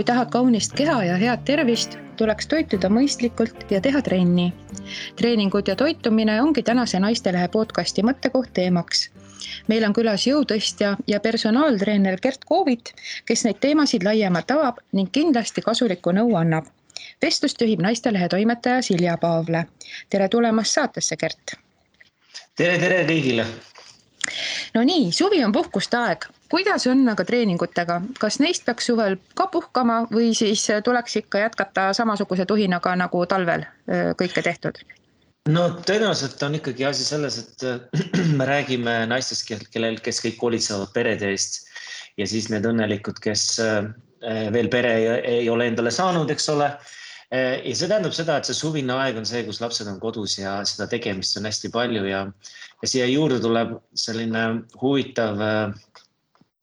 tahad kaunist keha ja head tervist, tuleks toituda mõistlikult ja teha trenni. Treeningud ja toitumine ongi tänase Naistelehe podcasti mõttekoht teemaks. Meil on külas jõutõstja ja personaaltreener Gert Koovit, kes neid teemasid laiemalt avab ning kindlasti kasulikku nõu annab. Vestlust juhib Naistelehe toimetaja Silja Paavle. Tere tulemast saatesse, Gert! Tere kõigile! No nii, suvi on puhkuste aeg. Kuidas on aga treeningutega? Kas neist peaks suvel ka puhkama või siis tuleks ikka jätkata samasuguse tuhinaga nagu talvel kõike tehtud? No tõenäoliselt on ikkagi asi selles, et me räägime naistest, kes kõik hoolitsevad perede eest ja siis need õnnelikud, kes veel pere ei ole endale saanud, eks ole. Ja see tähendab seda, et see suvine aeg on see, kus lapsed on kodus ja seda tegemist on hästi palju ja siia juurde tuleb selline huvitav,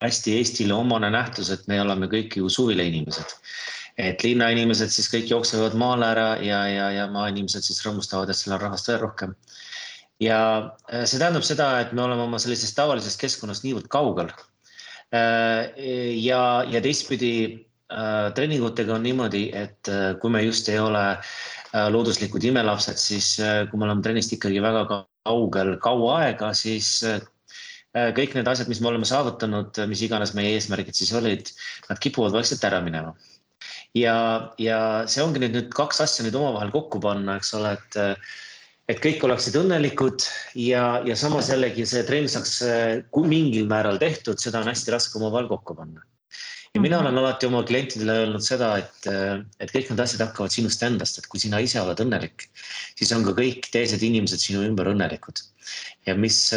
hästi Eestile omane nähtus, et me oleme kõik ju suvile inimesed. Et linnainimesed siis kõik jooksevad maale ära ja maainimesed siis rõõmustavad, et seal on rahvast veel rohkem. Ja see tähendab seda, et me oleme oma sellisest tavalisest keskkonnast niivõrd kaugel. Ja teistpidi treeningutega on niimoodi, et kui me just ei ole looduslikud imelapsed, siis kui me oleme trennist ikkagi väga kaugel kaua aega, siis kõik need asjad, mis me oleme saavutanud, mis iganes meie eesmärgid siis olid, nad kipuvad vaikselt ära minema. Ja see ongi nüüd kaks asja nüüd omavahel kokku panna, eks ole, et kõik oleksid õnnelikud ja samas jällegi see trenn saaks mingil määral tehtud, seda on hästi raske omavahel kokku panna. Ja mina olen alati oma klientidele öelnud seda, et kõik need asjad hakkavad sinust endast, et kui sina ise oled õnnelik, siis on ka kõik teised inimesed sinu ümber õnnelikud. Ja mis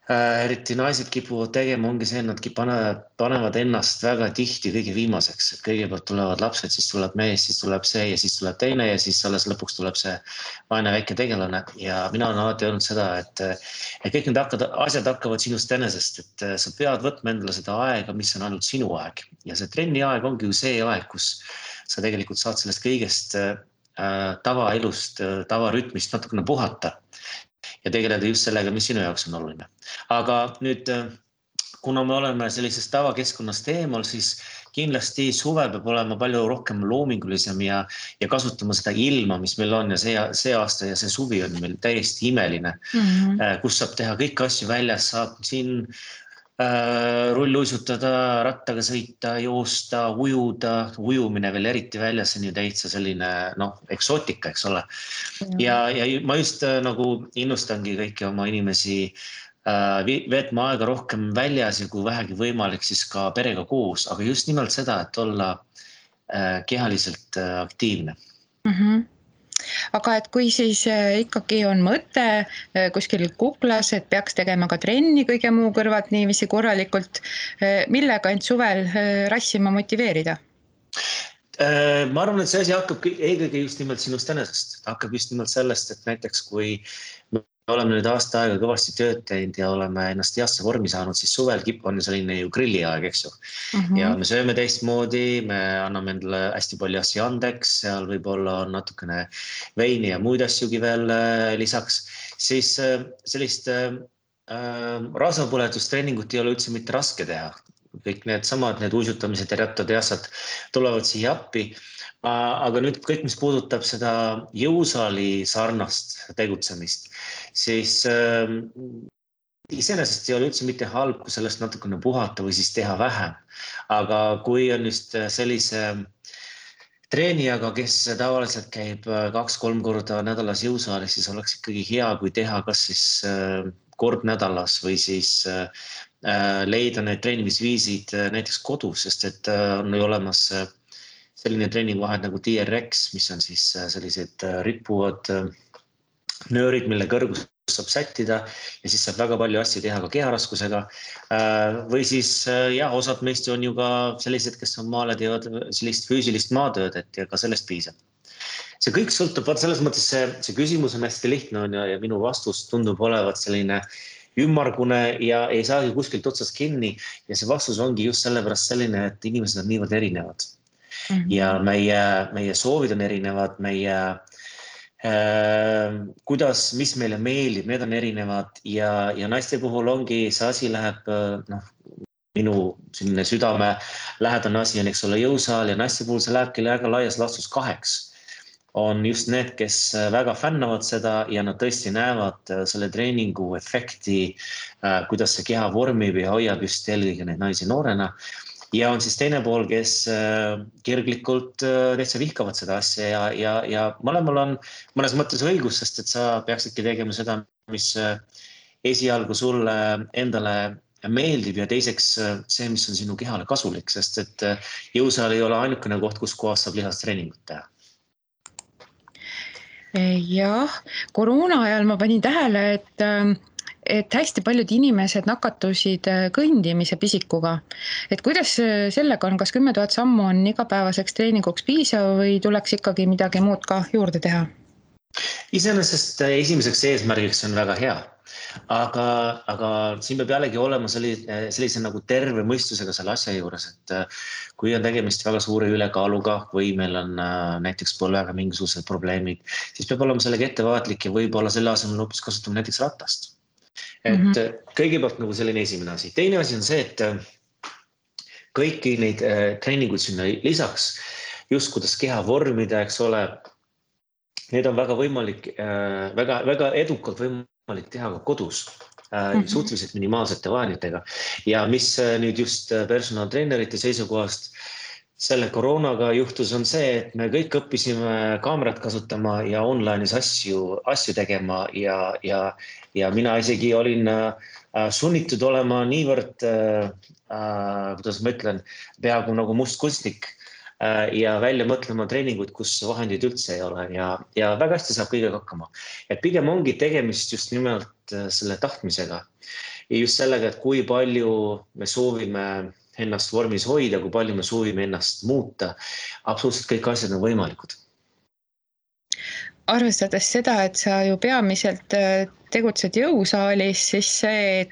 eriti naised kipuvad tegema, ongi see, et nad panevad ennast väga tihti kõige viimaseks. Et kõigepealt tulevad lapsed, siis tuleb mees, siis tuleb see ja siis tuleb teine ja siis alles lõpuks tuleb see vaene väike tegelane. Ja mina olen alati öelnud seda, et kõik need asjad hakkavad sinust enesest, et sa pead võtma endale seda aega, mis on ainult sinu aeg. Ja see trenni aeg ongi ju see aeg, kus sa tegelikult saad sellest kõigest tavaelust, tavarütmist natukene puhata. Ja tegeleda just sellega, mis sinu jaoks on oluline. Aga nüüd, kuna me oleme sellisest tavakeskkonnast eemal, siis kindlasti suve peab olema palju rohkem loomingulisem ja kasutama seda ilma, mis meil on ja see aasta ja see suvi on meil täiesti imeline, kus saab teha kõik asju väljas, saab siin rulluisutada, rattaga sõita, joosta, ujuda, ujumine veel eriti väljas on ju täitsa selline eksootika, eks ole. Ja ma just nagu innustangi kõiki oma inimesi veetma aega rohkem väljas ja kui vähegi võimalik siis ka perega koos, aga just nimelt seda, et olla kehaliselt aktiivne. Aga et kui siis ikkagi on mõte kuskil kuklas, et peaks tegema ka trenni kõige muu kõrvalt niiviisi korralikult, millega end suvel rassima motiveerida? Ma arvan, et see asi hakkab eelkõige just nimelt sinust enesest. Hakkab just nimelt sellest, et näiteks kui me oleme nüüd aasta aega kõvasti tööd teinud ja oleme ennast heasse vormi saanud, siis suvel on selline ju grilliaeg, eks ju. Ja me sööme teistmoodi, me anname endale hästi palju asju andeks, seal võib-olla on natukene veini ja muid asjugi veel lisaks. Siis sellist rasvapõletustreeningut ei ole üldse mitte raske teha. Kõik need uisutamised ja rattad ja asjad tulevad siia appi. Aga nüüd kõik, mis puudutab seda jõusaali sarnast tegutsemist, siis iseenesest ei ole üldse mitte halb, kui sellest natukene puhata või siis teha vähem. Aga kui on just sellise treenijaga, kes tavaliselt käib 2-3 korda nädalas jõusaalis, siis oleks ikkagi hea, kui teha kas siis kord nädalas või siis leida need treenimisviisid näiteks kodus, sest et on ju olemas selline treeningvahed nagu TRX, mis on siis sellised rippuvad nöörid, mille kõrgus saab sättida ja siis saab väga palju asju teha ka keharaskusega. Või siis osad meist on ju ka sellised, kes on maale teevad sellist füüsilist maatööd, et ka sellest piisab. See kõik sõltub, selles mõttes see küsimus on hästi lihtne ja minu vastus tundub olevat selline ümmargune ja ei saagi kuskilt otsast kinni ja see vastus ongi just sellepärast selline, et inimesed on niivõrd erinevad. Ja meie soovid on erinevad, mis meile meeldib, need on erinevad ja naiste puhul ongi see asi läheb minu selline südame lähedane asi on, eks ole, jõusaal ja naiste puhul see lähebki väga laias laastus 2. On just need, kes väga fännavad seda ja nad tõesti näevad selle treeningu efekti, kuidas see keha vormib ja hoiab just eelkõige neid naisi noorena. Ja on siis teine pool, kes kirglikult täitsa vihkavad seda asja ja mõlemal on mõnes mõttes õigus, sest et sa peaksidki tegema seda, mis esialgu sulle endale meeldib ja teiseks see, mis on sinu kehale kasulik, sest et jõusaal ei ole ainukene koht, kus kohas saab lihastreeningut teha. Jah, koroona ajal ma panin tähele, et hästi paljud inimesed nakatusid kõndimise pisikuga. Et kuidas sellega on, kas 10 000 sammu on igapäevaseks treeninguks piisav või tuleks ikkagi midagi muud ka juurde teha? Iseenesest esimeseks eesmärgiks on väga hea, aga siin peab jällegi olema sellise nagu terve mõistusega selle asja juures, et kui on tegemist väga suure ülekaaluga või meil on näiteks põlvega mingisugused probleemid, siis peab olema sellega ettevaatlik ja võib-olla selle asemel hoopis kasutama näiteks ratast. Et kõigepealt nagu selline esimene asi. Teine asi on see, et kõiki neid treeninguid sinna lisaks, just kuidas keha vormida, eks ole, need on väga võimalik, väga edukalt võimalik teha ka kodus, suhteliselt minimaalsete vahenditega. Ja mis nüüd just personaaltreenerite seisukohast selle koroonaga juhtus, on see, et me kõik õppisime kaamerat kasutama ja online'is asju tegema ja mina isegi olin sunnitud olema niivõrd, kuidas ma ütlen, peaaegu nagu mustkunstnik ja välja mõtlema treeninguid, kus vahendid üldse ei ole ja väga hästi saab kõigega hakkama. Et pigem ongi tegemist just nimelt selle tahtmisega ja just sellega, et kui palju me soovime ennast vormis hoida, kui palju me soovime ennast muuta. Absoluutselt kõik asjad on võimalikud. Arvestades seda, et sa ju peamiselt tegutsed jõusaalis, siis see,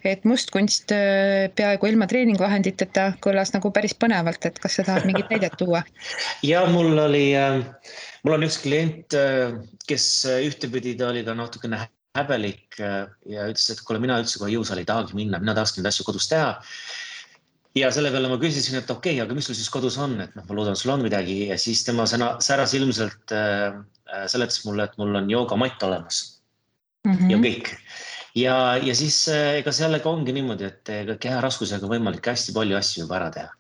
et mustkunst peaaegu ilma treeningvahenditeta kõlas nagu päris põnevalt, et kas sa tahad mingit näidet tuua? Ja mul on üks klient, kes ühtepidi ta oli ka natukene häbelik ja ütles, et kuule, mina üldse kohe jõusaali ei tahagi minna, mina tahaks neid asju kodus teha. Ja selle peale ma küsisin, et okei, aga mis sul siis kodus on, et ma loodan, sul on midagi ja siis tema säras ilmselt seletas mulle, et mul on joogamatt olemas ja kõik. Ja siis ega sellega ongi niimoodi, et keha raskusega võimalik hästi palju asju juba ära teha.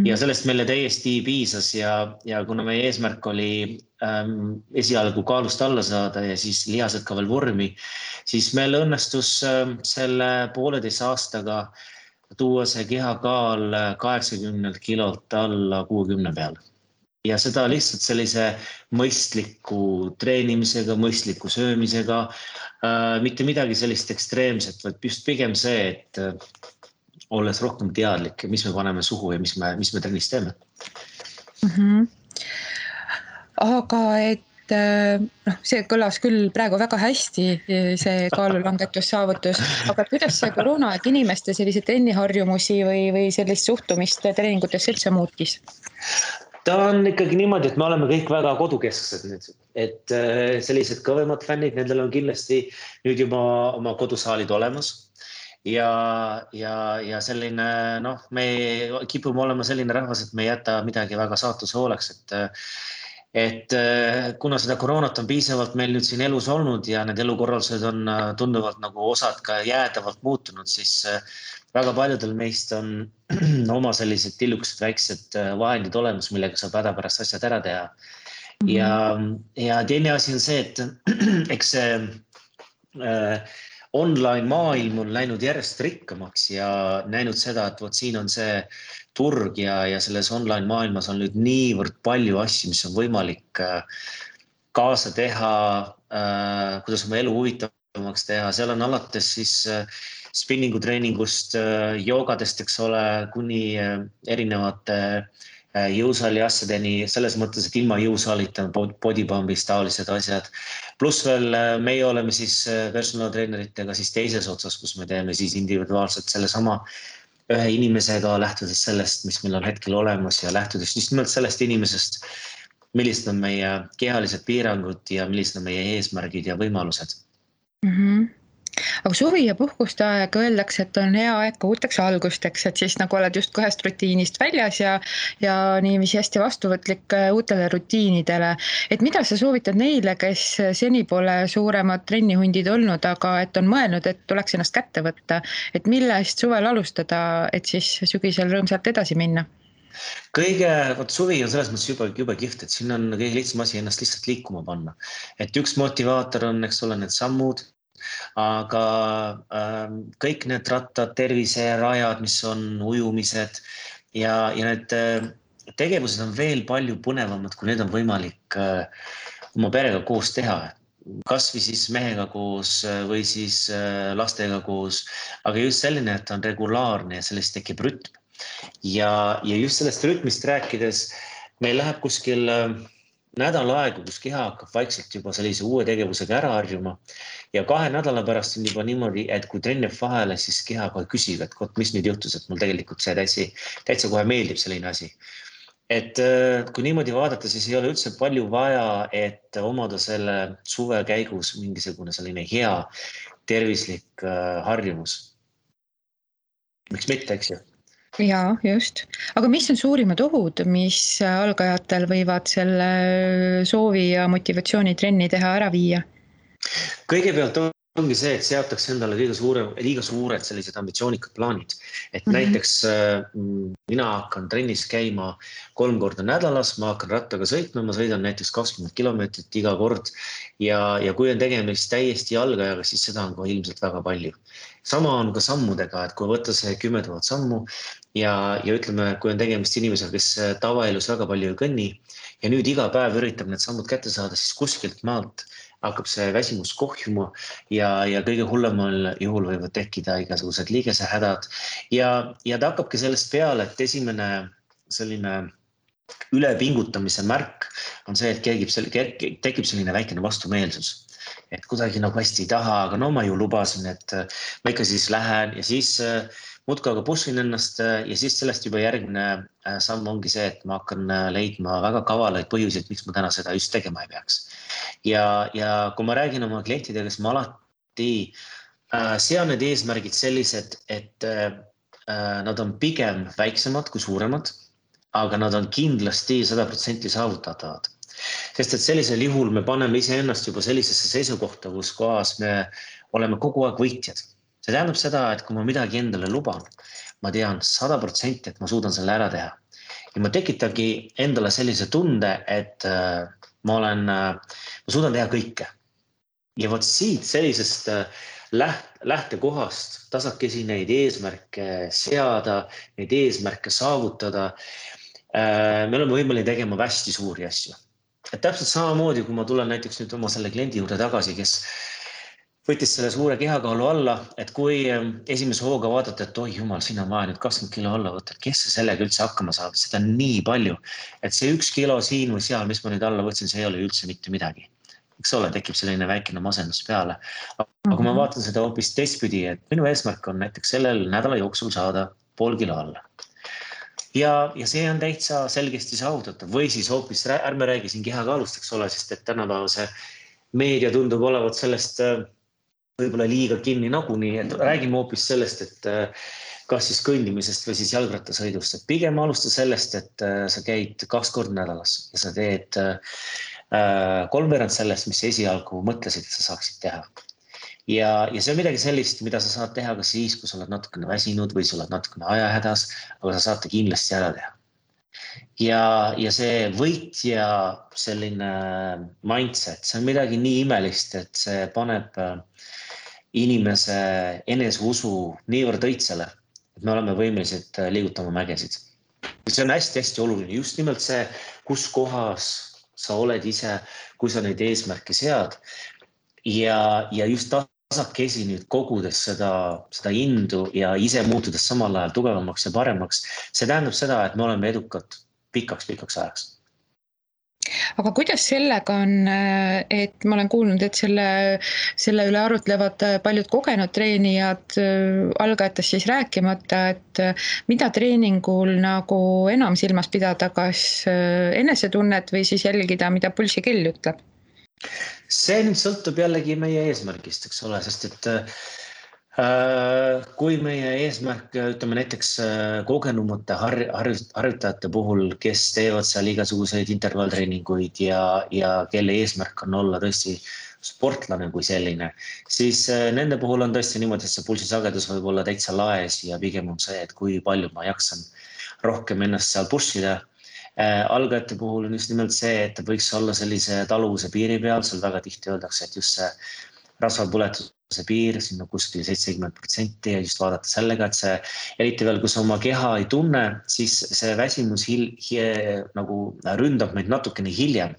Ja sellest meile täiesti piisas ja kuna meie eesmärk oli esialgu kaalust alla saada ja siis lihased ka veel vormi, siis meil õnnestus selle 1,5 aastaga tuua see kehakaal 80 kilolt alla 60 peal. Ja seda lihtsalt sellise mõistliku treenimisega, mõistliku söömisega, mitte midagi sellist ekstreemset, vaid just pigem see, et olles rohkem teadlik, mis me paneme suhu ja mis me trennis teeme. Aga see kõlas küll praegu väga hästi, see kaalulangetussaavutus, aga kuidas see koroonaaeg inimeste sellise trenniharjumusi või sellist suhtumist treeningutesse üldse muutis? Ta on ikkagi niimoodi, et me oleme kõik väga kodukesksed nüüd, et sellised kõvemad fännid, nendel on kindlasti nüüd juba oma kodusaalid olemas ja selline, me kipume olema selline rahvas, et me ei jäta midagi väga saatuse hooleks, et kuna seda koroonat on piisavalt meil nüüd siin elus olnud ja need elukorraldused on tunduvalt nagu osad ka jäädavalt muutunud, siis väga paljudel meist on oma sellised tillukesed väiksed vahendid olemas, millega saab hädapärast asjad ära teha. Ja teine asi on see, et eks see online maailm on läinud järjest rikkamaks ja näinud seda, et siin on see turg ja selles online maailmas on nüüd niivõrd palju asju, mis on võimalik kaasa teha, kuidas oma elu huvitavamaks teha. Seal on alates siis spinningu treeningust, joogadest, eks ole, kuni erinevate jõusaali asjadeni, selles mõttes, et ilma jõusaalita bodypumpist taolised asjad. Pluss veel meie oleme siis personaaltreeneritega siis teises otsas, kus me teeme siis individuaalselt selle sama ühe inimesega, lähtudes sellest, mis meil on hetkel olemas ja lähtudes just nimelt sellest inimesest, millised on meie kehalised piirangud ja millised on meie eesmärgid ja võimalused. Aga suvi ja puhkuste aeg öeldakse, et on hea aeg ka uuteks algusteks, et siis nagu oled just kohest rutiinist väljas ja niiviisi hästi vastuvõtlik uutele rutiinidele. Et mida sa soovitad neile, kes seni pole suuremad trennihundid olnud, aga et on mõelnud, et tuleks ennast kätte võtta, et millest suvel alustada, et siis sügisel rõõmsalt edasi minna? Vot suvi on selles mõttes jube kihvt, et siin on kõige lihtsam asi ennast lihtsalt liikuma panna. Et üks motivaator on, eks ole, need sammud, aga kõik need rattad, terviserajad, mis on ujumised ja need tegevused on veel palju põnevamad, kui need on võimalik oma perega koos teha. Kas või siis mehega koos või siis lastega koos, aga just selline, et on regulaarne ja sellest tekib rütm. Ja just sellest rütmist rääkides, meil läheb kuskil nädal aega, kus keha hakkab vaikselt juba sellise uue tegevusega ära harjuma. Ja 2 nädala pärast on juba niimoodi, et kui trenn jääb vahele, siis keha kohe küsib, et mis nüüd juhtus, et mul tegelikult see täitsa kohe meeldib selline asi. Et kui niimoodi vaadata, siis ei ole üldse palju vaja, et omada selle suve käigus mingisugune selline hea tervislik harjumus. Miks mitte, eks ju? Jaa, just. Aga mis on suurimad ohud, mis algajatel võivad selle soovi ja motivatsiooni trenni teha ära viia? Kõigepealt ongi see, et seatakse endale liiga suured sellised ambitsioonikad plaanid. Et näiteks mina hakkan trennis käima 3 korda nädalas, ma hakkan rattaga sõitma, ma sõidan näiteks 20 kilomeetrit iga kord ja kui on tegemist täiesti algajaga, siis seda on ka ilmselt väga palju. Sama on ka sammudega, et kui võtta see 10 000 sammu ja ütleme, kui on tegemist inimesega, kes tavaelus väga palju ei kõnni ja nüüd iga päev üritab need sammud kätte saada, siis kuskilt maalt hakkab see väsimus kohjuma ja kõige hullemal juhul võivad tekkida igasugused liigesehädad ja ta hakkabki sellest peale, et esimene selline ülepingutamise märk on see, et tekib selline väikene vastumeelsus. Et kuidagi nagu hästi ei taha, aga no ma ju lubasin, et ma ikka siis lähen ja siis muudkui aga pushin ennast ja siis sellest juba järgmine samm ongi see, et ma hakkan leidma väga kavalaid põhjuseid, miks ma täna seda just tegema ei peaks. Ja kui ma räägin oma klientidega, siis ma alati sean need eesmärgid sellised, et nad on pigem väiksemad kui suuremad, aga nad on kindlasti 100% saavutatavad. Sest et sellisel juhul me paneme iseennast juba sellisesse seisukohta, kus kohas me oleme kogu aeg võitjad. See tähendab seda, et kui ma midagi endale luban, ma tean 100%, et ma suudan selle ära teha. Ja ma tekitangi endale sellise tunde, et ma suudan teha kõike. Ja võt siit sellisest lähtekohast tasakesi neid eesmärke seada, neid eesmärke saavutada, me oleme võimalik tegema hästi suuri asju. Et täpselt samamoodi, kui ma tulen näiteks nüüd oma selle kliendi juurde tagasi, kes võttis selle suure kehakaalu alla, et kui esimese hooga vaadata, et oi jumal, siin on vaja nüüd 20 kilo alla võtta, kes see sellega üldse hakkama saab, seda on nii palju, et see 1 kilo siin või seal, mis ma nüüd alla võtsin, see ei ole üldse mitte midagi. Eks ole, tekib selline väikene masendus peale. Aga kui ma vaatan seda hoopis teistpidi, et minu eesmärk on näiteks sellel nädala jooksul saada 0,5 kilo alla. Ja see on täitsa selgesti saavutatav või siis hoopis ärme räägi siin kehakaalust, eks ole, sest et tänapäeva see meedia tundub olevat sellest võib-olla liiga kinni nagunii, et räägime hoopis sellest, et kas siis kõndimisest või siis jalgrattasõidust, et pigem alusta sellest, et sa käid 2 korda nädalas ja sa teed 3/4 sellest, mis esialgu mõtlesid, et sa saaksid teha. Ja see on midagi sellist, mida sa saad teha ka siis, kui sa oled natukene väsinud või sa oled natukene ajahädas, aga sa saate kindlasti ära teha. Ja see võitja selline mindset, see on midagi nii imelist, et see paneb inimese eneseusu niivõrd õitsele, et me oleme võimelised liigutama mägesid. See on hästi-hästi oluline, just nimelt see, kus kohas sa oled ise, kui sa neid eesmärke sead ja just tasakesi nüüd kogudes seda indu ja ise muutudes samal ajal tugevamaks ja paremaks, see tähendab seda, et me oleme edukad pikaks ajaks. Aga kuidas sellega on, et ma olen kuulnud, et selle üle arutlevad paljud kogenud treenijad, algajatest siis rääkimata, et mida treeningul nagu enam silmas pidada, kas enesetunnet või siis jälgida, mida pulsikell ütleb? See nüüd sõltub jällegi meie eesmärgist, eks ole, sest et kui meie eesmärk, ütleme näiteks kogenumate harjutajate puhul, kes teevad seal igasuguseid intervalltreeninguid ja kelle eesmärk on olla tõesti sportlane kui selline, siis nende puhul on tõesti niimoodi, et see pulsisagedus võib olla täitsa laes ja pigem on see, et kui palju ma jaksan rohkem ennast seal pushida. Algajate puhul on just nimelt see, et ta võiks olla sellise taluvuse piiri peal, seal väga tihti öeldakse, et just see rasvapõletuse piir, sinna kuskil 70% ja just vaadata sellega, et see, eriti veel, kui sa oma keha ei tunne, siis see väsimus nagu ründab meid natukene hiljem.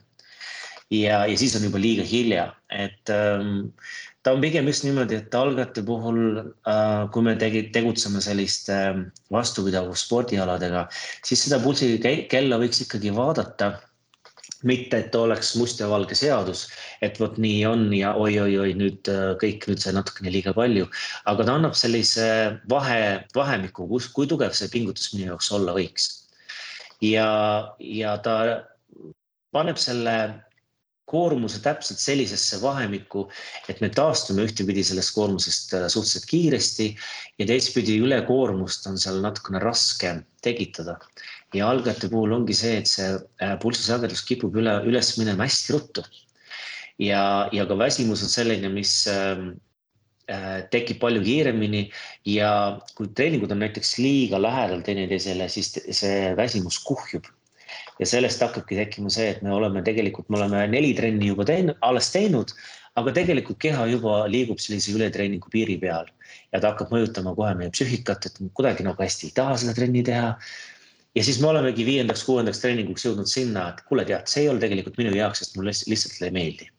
Ja siis on juba liiga hilja, et ta on pigem just niimoodi, et algajate puhul, kui me tegutseme selliste vastupidavus spordialadega, siis seda pulsi kella võiks ikkagi vaadata, mitte, et oleks must ja valge seadus, et vot nii on ja oi, nüüd kõik nüüd see natukene liiga palju, aga ta annab sellise vahemiku, kui tugev see pingutus minu jaoks olla võiks. Ja ta paneb selle koormuse täpselt sellisesse vahemikku, et me taastume ühtepidi sellest koormusest suhteliselt kiiresti ja teistpidi ülekoormust on seal natukene raske tekitada. Ja algajate puhul ongi see, et see pulsisagedus kipub üles minema hästi ruttu. Ja ka väsimus on selline, mis tekib palju kiiremini ja kui treeningud on näiteks liiga lähedal teineteisele, siis see väsimus kuhjub. Ja sellest hakkabki tekkima see, et me oleme 4 trenni juba alles teinud, aga tegelikult keha juba liigub sellise ületreeningu piiri peal. Ja ta hakkab mõjutama kohe meie psüühikat, et kuidagi nagu hästi ei taha seda trenni teha. Ja siis me olemegi 5.–6. treeninguks jõudnud sinna, et kuule tead, see ei ole tegelikult minu jaoks, sest mulle lihtsalt ei meeldi.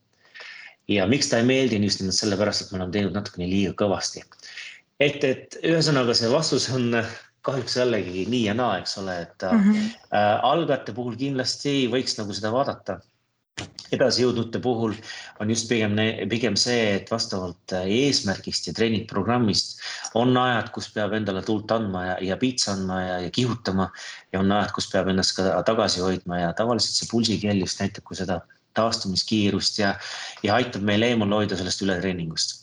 Ja miks ta ei meeldi, just nimelt sellepärast, et me oleme teinud natukene liiga kõvasti. Et ühesõnaga see vastus on kahjuks jällegi nii ja naa, eks ole, et algajate puhul kindlasti võiks nagu seda vaadata. Edasi jõudnute puhul on just pigem see, et vastavalt eesmärgist ja treeningprogrammist on ajad, kus peab endale tuld andma ja piitsa andma ja kihutama ja on ajad, kus peab ennast ka tagasi hoidma ja tavaliselt see pulsikell just näitab kui seda taastumiskiirust ja aitab meil eemal hoida sellest ületreeningust.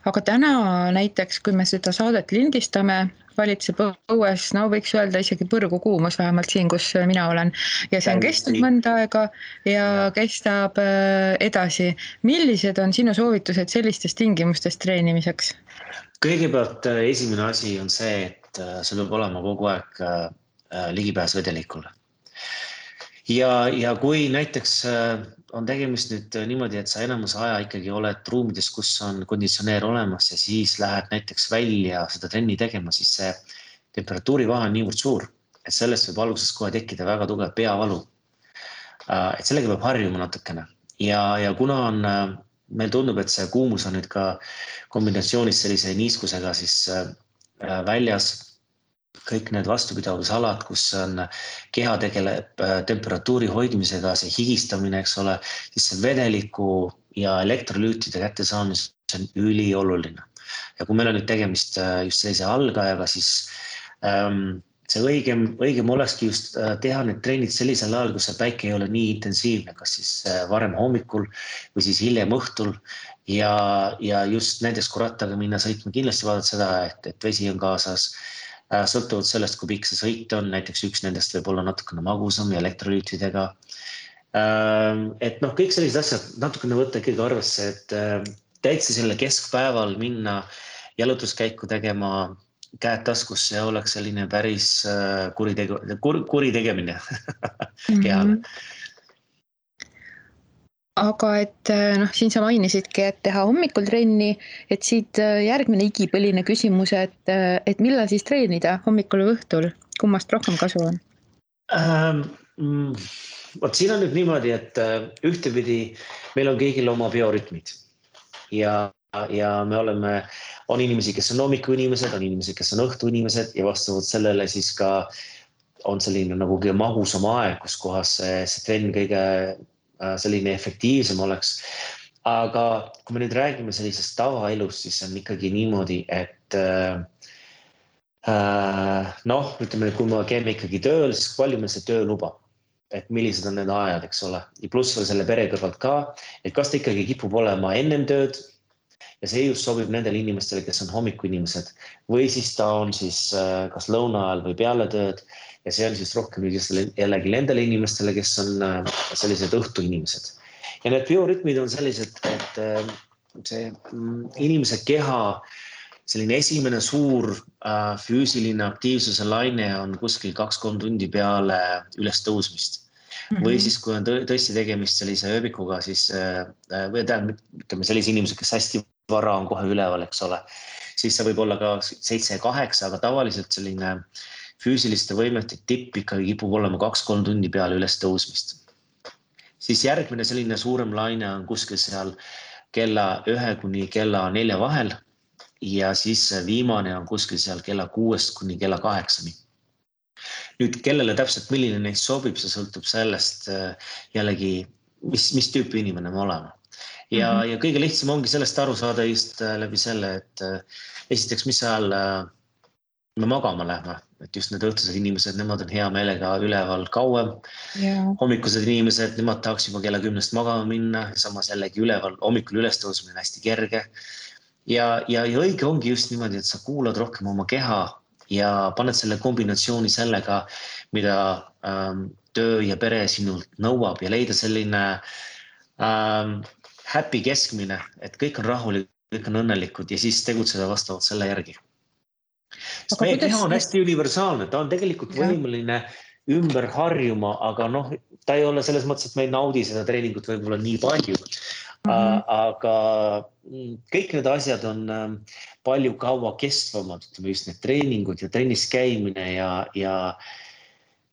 Aga täna näiteks, kui me seda saadet lindistame, valitseb õues, no võiks öelda isegi põrgu kuumus vähemalt siin, kus mina olen. Ja see on kestnud mõnda aega ja kestab edasi. Millised on sinu soovitused sellistes tingimustes treenimiseks? Kõigepealt esimene asi on see, et sul peab olema kogu aeg ligipääs vedelikule. Ja kui näiteks on tegemist nüüd niimoodi, et sa enamus aja ikkagi oled ruumides, kus on konditsioneer olemas ja siis lähed näiteks välja seda trenni tegema, siis see temperatuurivahe on niivõrd suur, et sellest võib alguses kohe tekkida väga tugev peavalu. Et sellega peab harjuma natukene. Ja kuna meil tundub, et see kuumus on nüüd ka kombinatsioonis sellise niiskusega siis väljas, kõik need vastupidavusalad, kus on keha tegeleb temperatuuri hoidmisega, see higistamine, eks ole, siis see vedeliku ja elektrolüütide kättesaamis on ülioluline. Ja kui meil on nüüd tegemist just sellise algajaga, siis see õigem olekski just teha need treenid sellisel ajal, kus see päike ei ole nii intensiivne, kas siis varem hommikul või siis hiljem õhtul. Ja just näiteks kui rattaga minna sõitma, kindlasti vaadata seda, et vesi on kaasas. Sõltuvalt sellest, kui pikk see sõit on, näiteks üks nendest võib olla natukene magusam ja elektrolüütidega. Et kõik sellised asjad natukene võtta ikkagi arvesse, et täitsa selle keskpäeval minna jalutuskäiku tegema käed taskusse ja oleks selline päris kuri tegemine kehale. Aga et siin sa mainisidki, et teha hommikul trenni, et siit järgmine igipõline küsimus, et millal siis treenida hommikul või õhtul? Kummast rohkem kasu on? Vot siin on nüüd niimoodi, et ühtepidi meil on kõigil oma biorütmid ja on inimesi, kes on hommikuinimesed, on inimesed, kes on õhtuinimesed ja vastavalt sellele siis ka on selline nagu mahusam aeg, kus kohas see trenn kõige selline efektiivsem oleks. Aga kui me nüüd räägime sellisest tavaelust, siis on ikkagi niimoodi, et ütleme, kui me käime ikkagi tööl, siis palju meil see töö lubab. et millised on need ajad, eks ole. Ja pluss veel selle pere kõrvalt ka, et kas ta ikkagi kipub olema ennem tööd ja see just sobib nendele inimestele, kes on hommikuinimesed või siis ta on siis kas lõuna ajal või peale tööd ja see on siis rohkem jällegi nendele inimestele, kes on sellised õhtuinimesed. Ja need biorütmid on sellised, et see inimese keha selline esimene suur füüsiline aktiivsuse laine on kuskil 2-3 tundi peale üles tõusmist. Või siis, kui on tõesti tegemist sellise ööbikuga, siis või ütleme sellise inimesed, kes hästi vara on kohe üleval, eks ole, siis see võib olla ka 7-8, aga tavaliselt selline füüsiliste võimete tipp ikkagi kipub olema 2-3 tundi peale üles tõusmist. Siis järgmine selline suurem laine on kuskil seal kella 1 kuni kella 4 vahel ja siis viimane on kuskil seal kella 6 kuni kella 8. Nüüd, kellele täpselt milline neist sobib, see sõltub sellest jällegi, mis tüüpi inimene me oleme. Ja kõige lihtsam ongi sellest aru saada just läbi selle, et esiteks, mis ajal me magama lähme, et just need õhtused inimesed, nemad on hea meelega üleval kauem. Hommikused inimesed, nemad tahaks juba kella 10 magama minna, samas jällegi üleval, hommikul üles tõusmine on hästi kerge. Ja õige ongi just niimoodi, et sa kuulad rohkem oma keha ja paned selle kombinatsiooni sellega, mida töö ja pere sinult nõuab ja leida selline happy keskmine, et kõik on rahulik, kõik on õnnelikud ja siis tegutseda vastavalt selle järgi. Sest meie keha on hästi universaalne, ta on tegelikult võimeline ümber harjuma, aga ta ei ole selles mõttes, et me ei naudi seda treeningut võib-olla nii palju. Aga kõik need asjad on palju kaua kestvamad, ütleme just need treeningud ja trennis käimine ja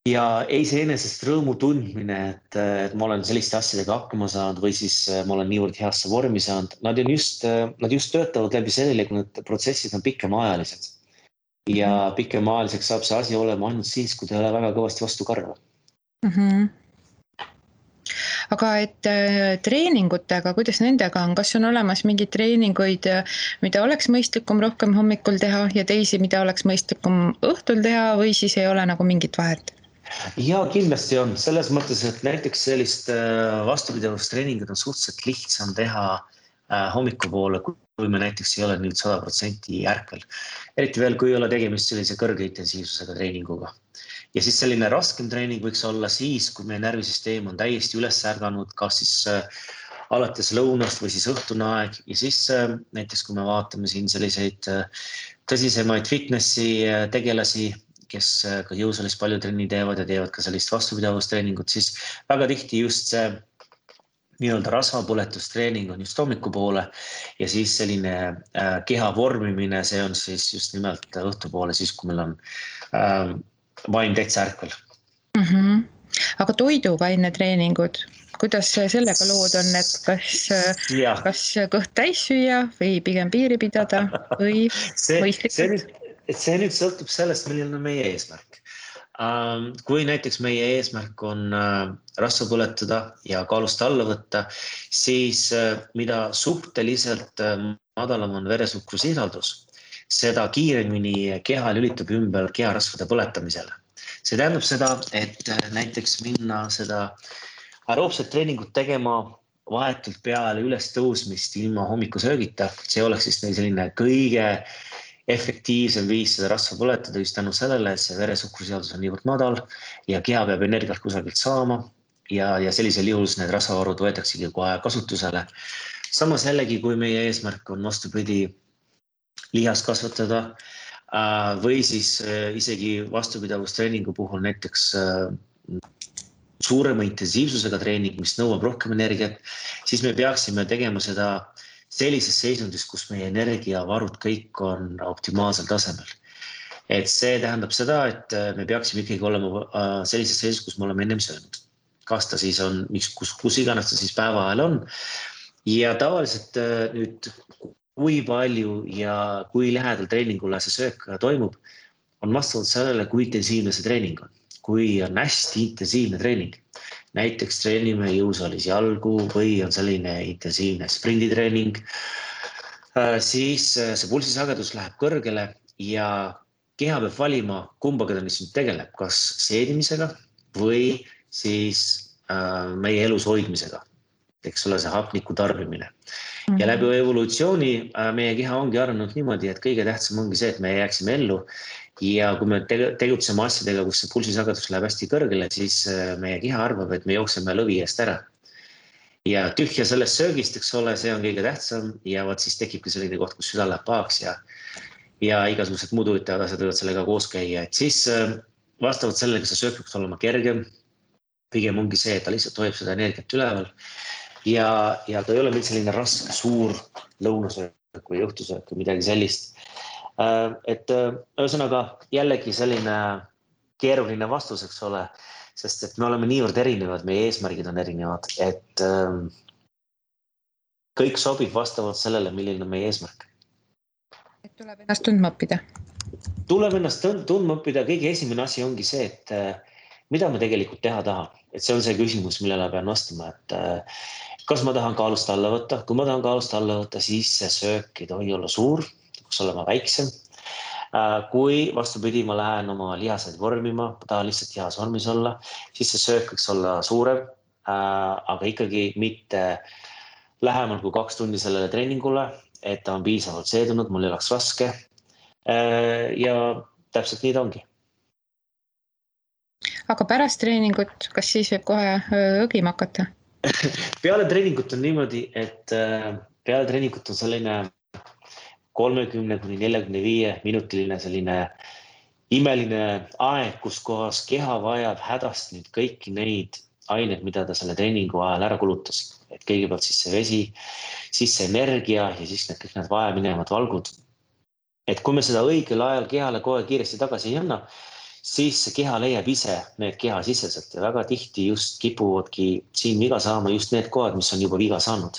iseenesest rõõmu tundmine, et ma olen selliste asjadega hakkama saanud või siis ma olen niivõrd heasse vormi saanud. Nad just töötavad läbi sellele, kui need protsessid on pikemaajalised. Ja pikemaajaliseks saab see asi olema ainult siis, kui ta ei ole väga kõvasti vastu karva. Aga et treeningutega, kuidas nendega on, kas on olemas mingeid treeninguid, mida oleks mõistlikum rohkem hommikul teha ja teisi, mida oleks mõistlikum õhtul teha või siis ei ole nagu mingit vahet? Ja kindlasti on selles mõttes, et näiteks sellist vastupidavustreningud on suhteliselt lihtsam teha hommikupoole, kui me näiteks ei ole nüüd 100% ärkvel. Eriti veel, kui ei ole tegemist sellise kõrge intensiivsusega treeninguga. Ja siis selline raskem treening võiks olla siis, kui meie närvisüsteem on täiesti üles ärganud, kas siis alates lõunast või siis õhtune aeg. Ja siis näiteks, kui me vaatame siin selliseid tõsisemaid fitnessi tegelasi, kes ka jõusaalis palju trenni teevad ja teevad ka sellist vastupidavustrenningut, siis väga tihti just see nii-öelda rasvapõletustreening on just hommikupoole ja siis selline keha vormimine, see on siis just nimelt õhtupoole, siis kui meil on vaim täitsa ärkvel. Aga toiduvaine treeningud, kuidas sellega lood on, et kas kõht täis süüa või pigem piiri pidada või mõistlikult? See nüüd sõltub sellest, milline on meie eesmärk. Kui näiteks meie eesmärk on rasva põletada ja kaalust alla võtta, siis mida suhteliselt madalam on veresuhkrusisaldus, seda kiiremini keha lülitub ümber keharasvade põletamisele. See tähendab seda, et näiteks minna seda aeroobset treeningut tegema vahetult peale üles tõusmist ilma hommikusöögita. See oleks siis selline kõige efektiivsem viis seda rasva põletada just tänu sellele, et see veresuhkrusisaldus on niivõrd madal ja keha peab energiat kusagilt saama ja sellisel juhul need rasvavarud võetaksegi kohe kasutusele. Samas jällegi, kui meie eesmärk on vastupidi lihast kasvatada või siis isegi vastupidavustreenigu puhul näiteks suurema intensiivsusega treening, mis nõuab rohkem energiat, siis me peaksime tegema seda sellises seisundis, kus meie energiavarud kõik on optimaalsel tasemel. Et see tähendab seda, et me peaksime ikkagi olema sellises seisus, kus me oleme ennem söönud. Kas ta siis on, kus iganes ta siis päeva ajal on. Ja tavaliselt nüüd, kui palju ja kui lähedal treeningule see söök toimub, on vastavalt sellele, kui intensiivne see treening on. Kui on hästi intensiivne treening. Näiteks treenime jõusaalis jalgu või on selline intensiivne sprinditreening, siis see pulsisagedus läheb kõrgele ja keha peab valima, kumbaga ta nüüd tegeleb, kas seedimisega või siis meie elus hoidmisega, eks ole, see hapniku tarbimine. Ja läbi evolutsiooni meie keha ongi arenenud niimoodi, et kõige tähtsam ongi see, et me jääksime ellu. Ja kui me tegutseme asjadega, kus see pulsisagedus läheb hästi kõrgele, siis meie keha arvab, et me jookseme lõvi eest ära. Ja tühja sellest söögist, eks ole, see on kõige tähtsam ja võt siis tekibki selline koht, kus süda läheb pahaks ja igasugused muud huvitavad asjad võivad sellega koos käia. Et siis vastavalt sellega see söök peaks olema kergem. Pigem ongi see, et ta lihtsalt hoiab seda energiat üleval ja ta ei ole meil selline raske, suur lõunasöök või õhtusöök või midagi sellist. Et ühesõnaga jällegi selline keeruline vastus, eks ole, sest et me oleme niivõrd erinevad, meie eesmärgid on erinevad, et kõik sobib vastavalt sellele, milline on meie eesmärk. Et tuleb ennast tundma õppida. Tuleb ennast tundma õppida. Kõige esimene asi ongi see, et mida ma tegelikult teha tahan. Et see on see küsimus, millele pean vastama, et kas ma tahan kaalust alla võtta. Kui ma tahan kaalust alla võtta, siis see söök ei tohi olla suur, peaks olema väiksem. Kui vastupidi, ma lähen oma lihaseid vormima, tahan lihtsalt lihas vormis olla, siis see söök võiks olla suurem, aga ikkagi mitte lähemal kui 2 tundi sellele treeningule, et ta on piisavalt seedunud, mul ei oleks raske. Ja täpselt nii ta ongi. Aga pärast treeningut, kas siis võib kohe õgima hakata? Peale treeningut on niimoodi, et peale treeningut on selline 30–45 minutiline selline imeline aeg, kus kohas keha vajab hädast nüüd kõiki neid aineid, mida ta selle treeningu ajal ära kulutas. Et kõigepealt siis see vesi, siis see energia ja siis kõik need vajaminevad valgud. Et kui me seda õigel ajal kehale kohe kiiresti tagasi ei anna, siis see keha leiab ise need kehasiseselt ja väga tihti just kipuvadki siin viga saama just need kohad, mis on juba viga saanud.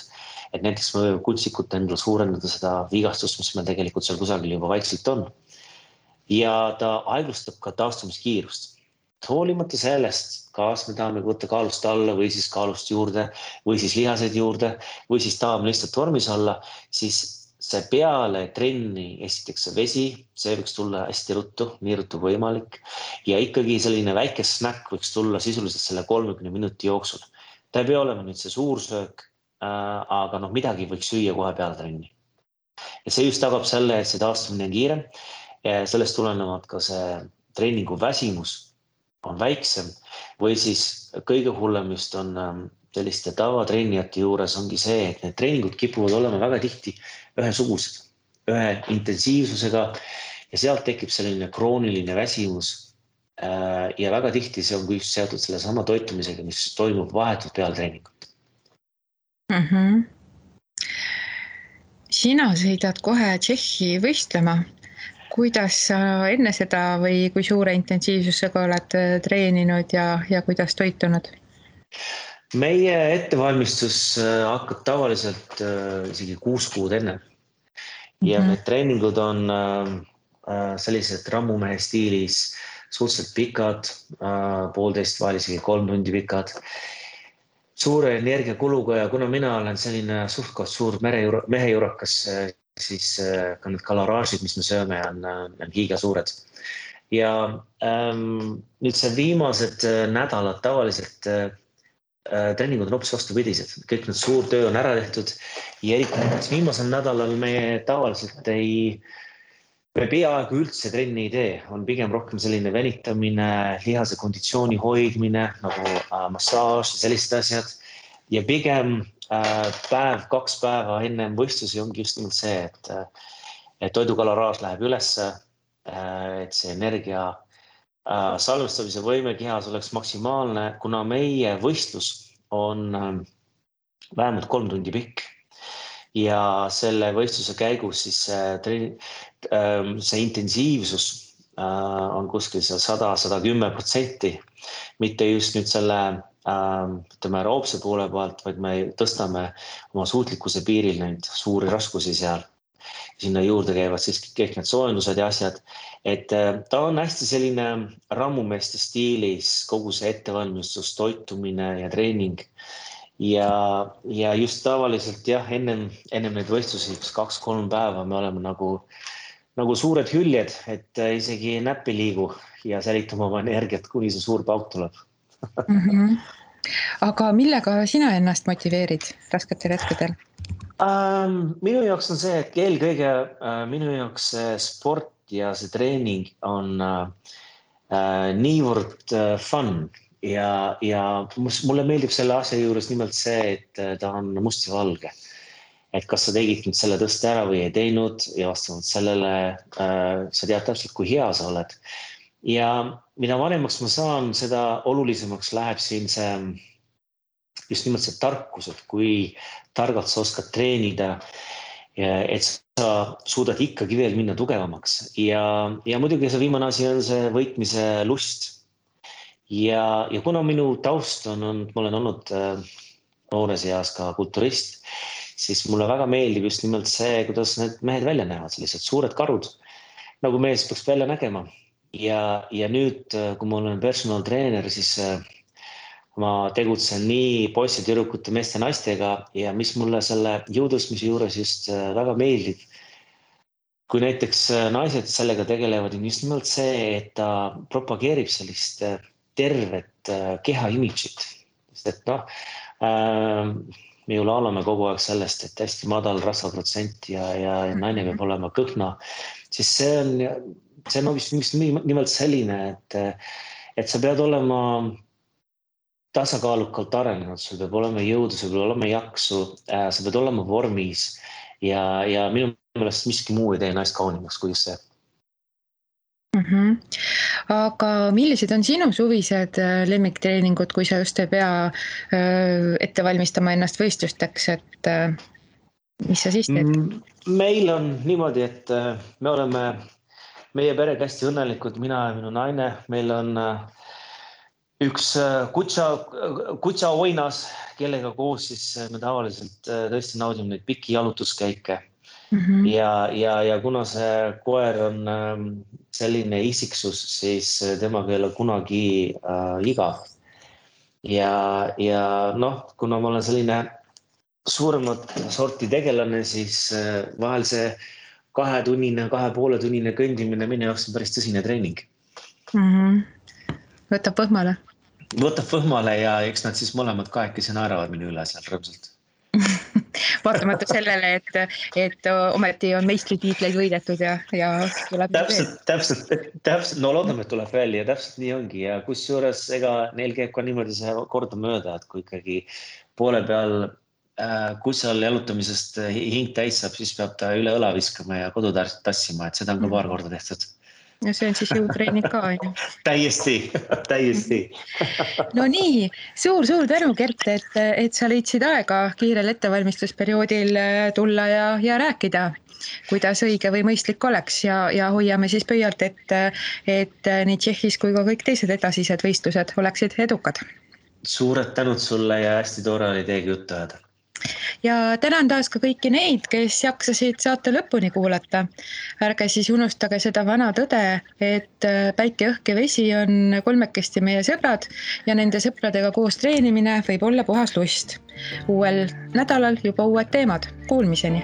Et näiteks me võime kutsikut endale suurendada seda vigastust, mis meil tegelikult seal kusagil juba vaikselt on. Ja ta aeglustab ka taastumiskiirust. Hoolimata sellest, kas me tahame võtta kaalust alla või siis kaalust juurde või siis lihaseid juurde või siis tahame lihtsalt vormis olla, siis see peale trenni esiteks see vesi, see võiks tulla hästi ruttu, nii ruttu võimalik. Ja ikkagi selline väike snäkk võiks tulla sisuliselt selle 30 minuti jooksul. Ta ei pea olema nüüd see suur söök, aga midagi võiks süüa kohe peale trenni. Ja see just tagab selle, et see taastumine on kiirem. Sellest tulenevalt ka see treeningu väsimus on väiksem või siis kõige hullem just on selliste tavatreenijate juures ongi see, et need treeningud kipuvad olema väga tihti ühesugused, ühe intensiivsusega ja sealt tekib selline krooniline väsimus ja väga tihti see on just seotud selle sama toitumisega, mis toimub vahetult peale treeningut. Sina sõidad kohe Tšehhi võistlema. Kuidas sa enne seda või kui suure intensiivsusega oled treeninud ja kuidas toitunud? Meie ettevalmistus hakkab tavaliselt isegi 6 kuud enne. Ja need treeningud on sellised rammumehe stiilis suhteliselt pikad, 1,5 vahel isegi 3 tundi pikad. Suure energiakuluga ja kuna mina olen selline suhtkond suur mehejurakas, siis ka need kaloraažid, mis me sööme, on giga suured. Ja nüüd see viimased nädalad tavaliselt treeningud on hoopis vastupidised. Kõik need suur töö on ära tehtud ja eriti viimasel nädalal me tavaliselt me peaaegu üldse trenni ei tee. On pigem rohkem selline venitamine, lihase konditsiooni hoidmine, nagu massaaž ja sellised asjad. Ja pigem 2 päeva enne võistlusi ongi just nimelt see, et toidukaloraaž läheb ülesse, et see energia salvestamise võime kehas oleks maksimaalne, kuna meie võistlus on vähemalt 3 tundi pikk ja selle võistluse käigus siis see intensiivsus on kuskil 100–110%, mitte just nüüd selle aeroobse poole pealt, vaid me tõstame oma suutlikkuse piiril neid suuri raskusi seal. Sinna juurde käivad siis kõik need soojendused ja asjad, et ta on hästi selline rammumeeste stiilis kogu see ettevalmistus, toitumine ja treening ja just tavaliselt jah, ennem neid võistlusi 2-3 päeva me oleme nagu suured hüljed, et isegi näppi liigu ja säilitame oma energiat, kuni see suur pauk tuleb. Aga millega sina ennast motiveerid rasketel hetkedel? Minu jaoks on see, et eelkõige minu jaoks see sport ja see treening on niivõrd fun ja mulle meeldib selle asja juures nimelt see, et ta on must ja valge. Et kas sa tegid nüüd selle tõste ära või ei teinud ja vastavalt sellele sa tead täpselt, kui hea sa oled. Ja mida vanemaks ma saan, seda olulisemaks läheb siin see just nimelt see tarkus, et kui targalt sa oskad treenida, et sa suudad ikkagi veel minna tugevamaks. Ja muidugi see viimane asi on see võitmise lust. Ja kuna minu taust ma olen olnud noores eas ka kulturist, siis mulle väga meeldib just nimelt see, kuidas need mehed välja näevad, sellised suured karud, nagu mees peaks välja nägema. Ja nüüd, kui ma olen personal treener, siis ma tegutsen nii poisse, tüdrukute, meeste, naistega ja mis mulle selle jõutõstmise juures just väga meeldib, kui näiteks naised sellega tegelevad, on just nimelt see, et ta propageerib sellist tervet keha imidžit. Sest et me ju laulame kogu aeg sellest, et hästi madal rasvaprotsent ja naine peab olema kõhna, siis see on vist nimelt selline, et sa pead olema tasakaalukalt arenenud, sul peab olema jõudu, sul peab olema jaksu, sa pead olema vormis ja minu meelest miski muu ei tee naist kaunimaks kui see. Aga millised on sinu suvised lemmiktreeningud, kui sa just ei pea ette valmistama ennast võistlusteks, et mis sa siis teed? Meil on niimoodi, et me oleme meie perega hästi õnnelikud, mina ja minu naine, meil on üks kutsa oinas, kellega koos siis me tavaliselt tõesti naudime neid pikki jalutuskäike. Ja kuna see koer on selline isiksus, siis temaga ei ole kunagi igav. Ja kuna ma olen selline suuremat sorti tegelane, siis vahel see 2-tunnine, 2,5-tunnine kõndimine minu jaoks on päris tõsine treening. Võtab võhmale? Võtab võhmale ja eks nad siis mõlemad kahekesi naeravad minu üle seal rõõmsalt. Vaatamata sellele, et ometi on meistritiitleid võidetud ja tuleb täpselt, no loodame, et tuleb välja ja täpselt nii ongi ja kusjuures ega neil käib ka niimoodi see korda mööda, et kui ikkagi poole peal kutsal jalutamisest hing täis saab, siis peab ta üle õla viskama ja kodu tassima, et seda on ka paar korda tehtud. Ja see on siis jõutreening ka, on ju? Täiesti. No nii, suur tänu, Gert, et sa leidsid aega kiirel ettevalmistusperioodil tulla ja rääkida, kuidas õige või mõistlik oleks ja hoiame siis pöialt, et nii Tšehhis kui ka kõik teised edasised võistlused oleksid edukad. Suured tänud sulle ja hästi tore oli teiega juttu ajada. Ja tänan taas ka kõiki neid, kes jaksasid saate lõpuni kuulata. Ärge siis unustage seda vana tõde, et päike, õhk ja vesi on kolmekesti meie sõbrad ja nende sõpradega koos treenimine võib olla puhas lust. Uuel nädalal juba uued teemad. Kuulmiseni!